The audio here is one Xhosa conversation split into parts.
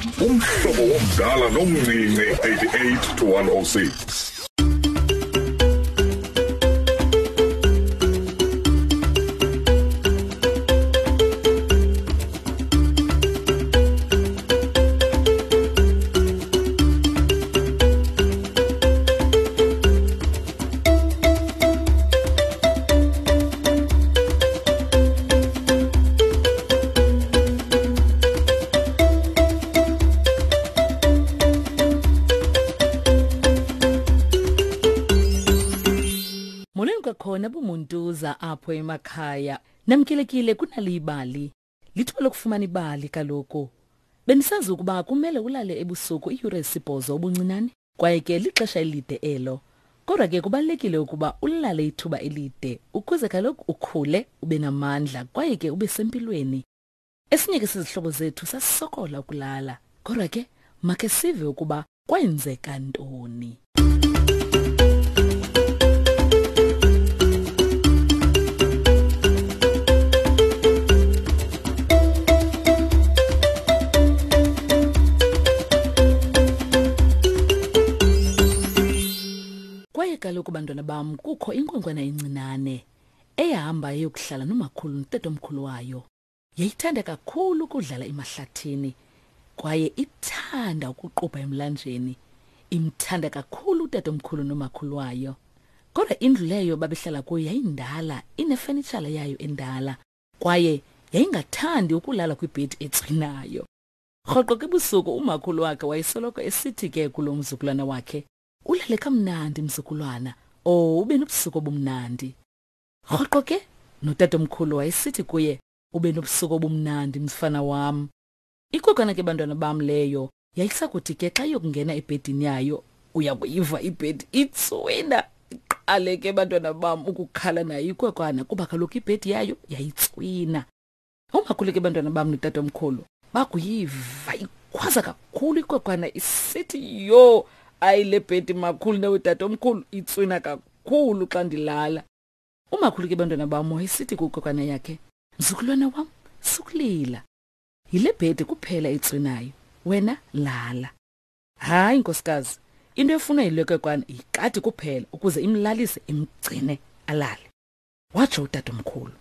Umhlobo womdala nomncinci 88 to 106. Molweni kwakhona bumuntuza apho emakhaya. Namkelekile kunali ibali. Lithuba lokufumana ibali kaloku. Bendisazi ukuba kumele ulale ebusuku iiyure ezisibhozo ubuncinane kwaye ke lixesha elide elo. Kodwa ke kubalulekile ukuba ulale ithuba elide ukuze kaloku ukhule ube namandla kwaye ke ube sempilweni. Esinye ke sezihlobo zethu sasisokola ukulala. Kodwa ke makhe sive ukuba kwenzeka ntoni. Kwaye kaloku bantwana bam kukho inkwenkwana encinane eyahamba eyokuhlala nomakhulu notatomkhulu wayo. Yayithanda kakhulu ukudlala emahlathini kwaye ithanda ukuqubha emlanjeni. Imthanda kakhulu utatomkhulu nomakhulu wayo. Kodwa indlu leyo babehlala kuyo yayindala, inefenitshala yayo endala kwaye yayingathandi ukulala kwibhedi ecinayo. Rhoqo ke ebusuku umakhulu wakhe wayesoloko esithi ke kulo mzukulwana wakhe, ulale kamnandi mzukulwana, oh ube nobusuku obumnandi. Rhoqo ke notatomkhulu wayesithi kuye, ube nobusuku obumnandi mfana wam. Ikwenkwana ke bantwana bam leyo yayisakuthi ke xa iyokungena ebhedini yayo uya kuyiva ibhedi itswina iqale ke bantwana bam ukukhala nayo ikwekwana kuba kaloku ibhedi yayo yayitswina. Umakhulu ke bantwana bam notatomkhulu bakuyiva ikhwaza kakhulu ikwekwana isithi yho ayi le bhedi makhulu nawe tatomkhulu itswina kakhulu xa ndilala. Umakhulu ke bantwana bam wayesithi kwikwekwana yakhe, mzukulwana wam sukulila. Yile bhedi kuphela itswinayo, wena lala. Hayi nkosikazi, into efunwa yile kwekwana yikati kuphela ukuze imlalise imgcine alale. Watsho utatomkhulu.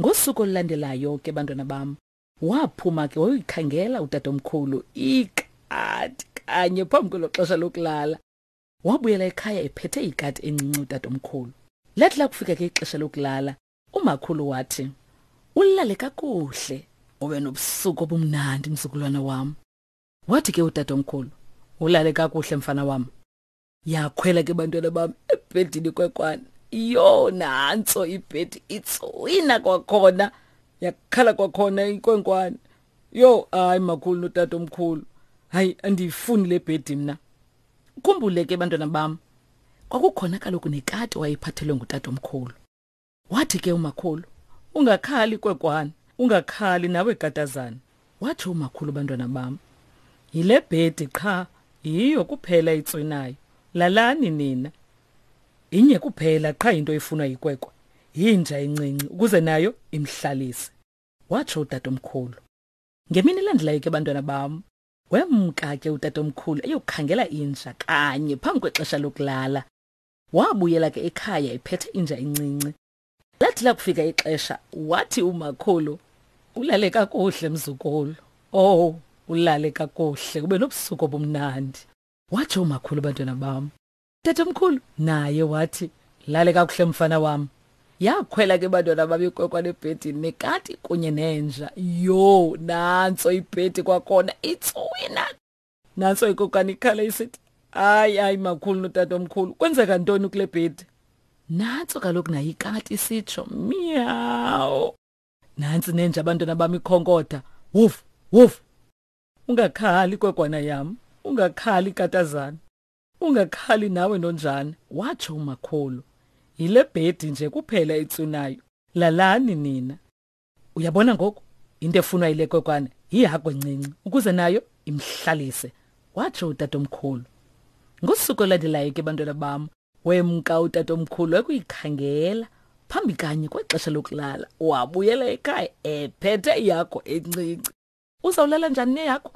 Ngosuku olulandelayo ke bantwana bam, waphuma ke wayoyikhangela utatomkhulu ikati kanye phambi kwelo xesha lokulala. Wabuyela ekhaya ephethe ikati encinci utatomkhulu. Lathi lakufika ke ixesha lokulala, umakhulu wathi, "Ulale kakuhle, ube nobusuku obumnandi mzukulwana wam." Wathi ke utatomkhulu, "Ulale kakuhle mfana wam." Yakhwela ke bantwana bam ebhedini kwekwana. Yho, nantso ibhedi itswina kwakhona. Yakhala kwakhona inkwenkwana. Yho, hayi makhulu notatomkhulu. Hayi andiyifuni le bhedi mna. Ukhumbule ke bantwana bam, kwakukhona kaloku nekati wayephathelwe ngutatomkhulu. Wathi ke umakhulu, ungakhali kwekwana, ungakhali nawe katazana. Wathi umakhulu bantwana bam, yile bhedi qha yiyo kuphela itswinayo. Lalani nina. Inye kuphela qha into efunwa yikwekwe. Yinja encinci ukuze nayo imhlalise. Watsho utatomkhulu. Ngemini elandelayo ke bantwana bam, Wemka ke utatomkhulu eyokhangela inja kanye phambi kwexesha lokulala. Wabuyela ke ekhaya ephethe inja encinci. Lathi lakufika ixesha wathi umakhulu, ulale kakuhle mzukulu. Oh, ulale kakuhle ube nobusuku obumnandi. Watsho umakhulu bantwana bam. Tatomkhulu naye wathi, lale kakuhle mfana wam. Yakhwela ke bantwana bam ikwenkwana ebhedini nekati kunye nenja. Yho, nantso ibhedi kwakhona itswina. Nantso ikokana ikhala isithi, hayi hayi makhulu notatomkhulu, kwenzeka ntoni kule bhedi? Nantso kaloku nayo ikati isitsho, miyawu. Nantsi nenja abantwana bam ikhonkotha, wuf wuf. Ungakhali kwekwana yam, ungakhali katazana. Ungakhali nawe nonjana, watsho umakhulu. Yile bhedi nje kuphela itswinayo. Lalani nina. Uyabona ngoku into efunwa yile kwekwana yihagu encinci ukuze nayo imhlalise, watsho utatomkhulu. Ngosuku olulandelayo ke bantwana bam, wemka utatomkhulu ekuyikhangela phambi kanye kwexesha lokulala. Wabuyela ekhaya ephethe ihagu encinci. Uzawulala njani neyakho?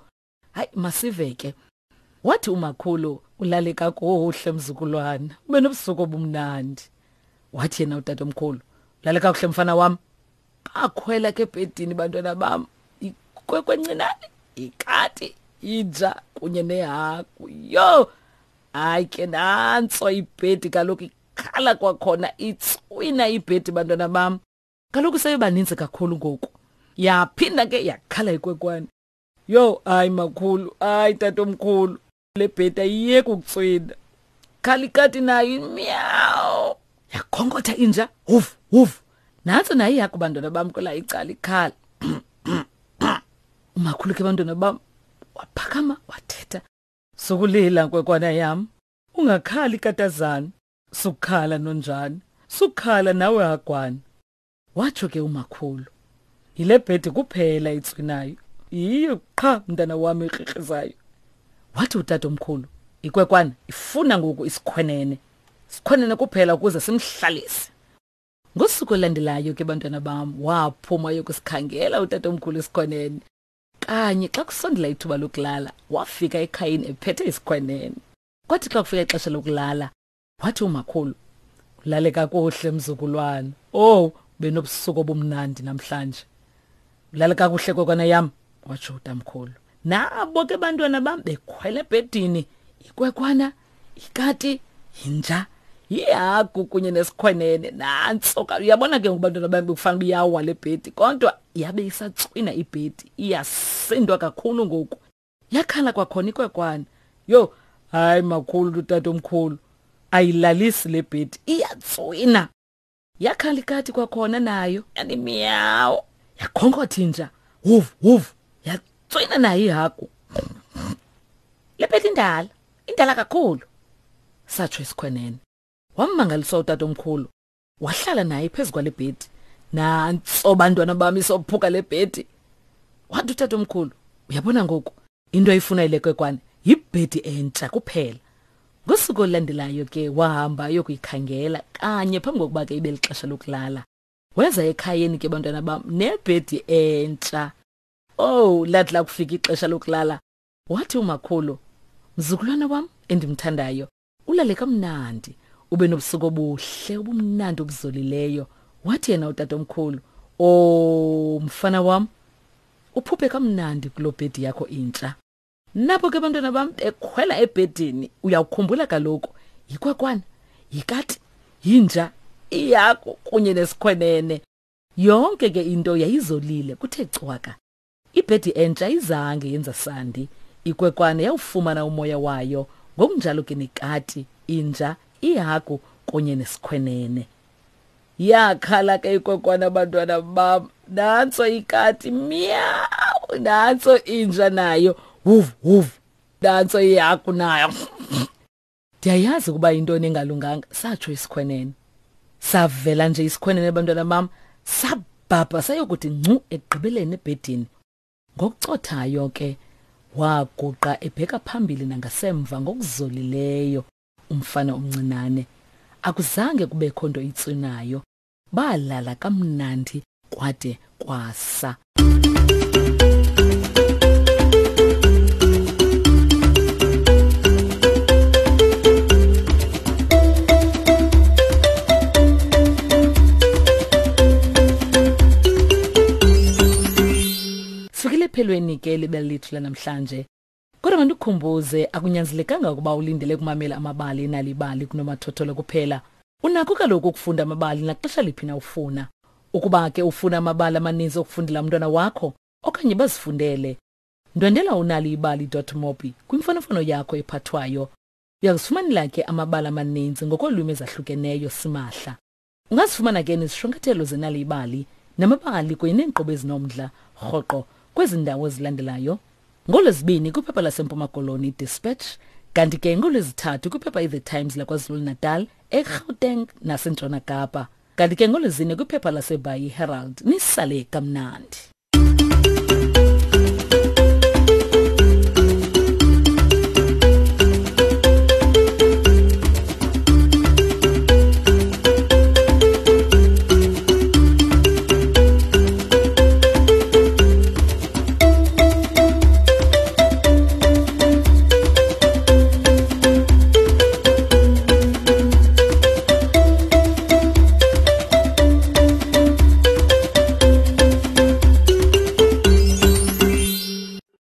Hayi, masive ke. Wathi umakhulu, ulale kakuhle mzukulwana, ube nobusuku obumnandi. Wathi yena utatomkhulu, ulale kakuhle mfana wam. Bakhwela ke ebhedini bantwana bam, ikwekwe encinane, ikati, inja kunye nehagu. Yho! Hayi ke nantso ibhedi kaloku ikhala kwakhona, itswina ibhedi bantwana bam. Kaloku sebebaninzi kakhulu ngoku. Yaphinda ke yakhala ikwekwane. Yho, hayi makhulu, hayi tatomkhulu, le bhedi ayiyeki ukutswina. Khala ikati nayo, miyawu. Yakhonkotha inja, huf, huf. Nantso nayo ihagu bantwana bam kwela icala ikhala. Umakhulu ke bantwana bam waphakama wathetha. Sukulila nkwekwana yam, ungakhali katazana, sukhala nonjani, sukhala nawe hagwana. Watsho ke umakhulu. Yile bhedi kuphela itswinayo. Yiyo qha mntana wam ikrikrizayo. Wathi utatomkhulu, ikwekwana ifuna ngoku isikhwenene. Sikhwenene kuphela ukuze simhlalise. Ngosuku olulandelayo ke bantwana bam, waphuma yokusikhangela utatomkhulu isikhwenene. Kanye xa kusondela ithuba lokulala, wafika ekhayeni ephethe isikhwenene. Kwathi xa kufika ixesha lokulala, wathi umakhulu, ulale kakuhle mzukulwana. Oh, benobusuku obumnandi namhlanje. Ulale kakuhle kokwana yam, watsho utamkhulu. Nabo ke bantwana bam bekhwela ebhedini, ikwekwana, ikati, yinja, yihagu kunye nesikhwenene. Nantso ka, uyabona ke ngoku bantwana bam bekufanele uba iyawa le bhedi, kodwa yabe isatswina ibhedi, iyasindwa kakhulu ngoku. Yakhala kwakhona ikwekwana. Yho, hayi makhulu utatomkhulu, ayilalisi le bhedi, iyatswina. Yakhala ikati kwakhona nayo, yani miyawu. Yakhonkotha inja, huvu huvu, yatswina nayo ihagu. Le bhedi indala, indala kakhulu, satsho isikhwenene. Wammangaliswa utatomkhulu, wahlala naye phezu kwale bhedi. Nantso bantwana bam isophuka le bhedi. Wathi utatomkhulu, uyabona ngoku into ayifuna ile kwekwane yibhedi entsha kuphela. Ngosuku olulandelayo ke wahamba ayokuyikhangela kanye phambi kokuba ke ibe lixesha lokulala. Weza ekhayeni ke bantwana bam nebhedi entsha. Oh, lathi lakufika ixesha lokulala, wathi umakhulu, mzukulwana wam endimthandayo, ulale kamnandi, ube nobusuku obuhle obumnandi obuzolileyo. Wathi yena utatomkhulu, oh mfana wam, uphuphe kamnandi kuloo bhedi yakho intsha. Nabo ke bantwana bam bekhwela ebhedini, uyawukhumbula kaloku, yikwekwana, yikati, yinja, ihagu kunye nesikhwenene. Yonke ke into yayizolile kuthe cwaka. Ibhedi entsha izange yenza sandi. Ikwekwane yawufumana umoya wayo, ngokunjalo ke nekati, inja, ihagu kunye nesikhwenene. Yakhala ke ikwekwana bantwana bam, nantso ikati miyawu, nantso inja nayo huv huv, nantso ihagu nayo. Ndiyayazi ukuba yintoni engalunganga, satsho isikhwenene. Savela nje isikhwenene bantwana bam, sabhabha sayokuthi ngcu ekugqibeleni ebhedini. Ngokucothayo ke waguqa ebheka phambili nangasemva ngokuzolileyo umfana omncinane. Akuzange kubekho nto itswinayo. Balala kamnandi kwade kwasa. Sifikile ephelweni ke libali lethu lanamhlanje. Kodwa mandikukhumbuze, akunyanzelekanga ukuba ulindele ukumamela amabali enalibali kunomathotholo kuphela. Unakho kaloku ukufunda amabali naxesha liphi na ufuna. Ukuba ke ufuna amabali amaninzi okufundela umntwana wakho okanye bazifundele, ndwendela unaliibali.mobi kwimfonomfono yakho ephathwayo. Uyakuzifumanela ke amabali amaninzi ngokolwimi ezahlukeneyo simahla. Ungazifumana ke nezishwankathelo zenalibali namabali kunye neenkqubo ezinomdla rhoqo kwezi ndawo zilandelayo. NgoLwezibini kwiphepha laseMpuma Koloni iDispatch, kanti ke ngoLwezithathu kwiphepha iThe Times laKwaZulu-Natal, eGauteng naseNtshona Kapa. Kanti ke ngoLwezine kwiphepha laseBhayi iHerald. Nisale kamnandi.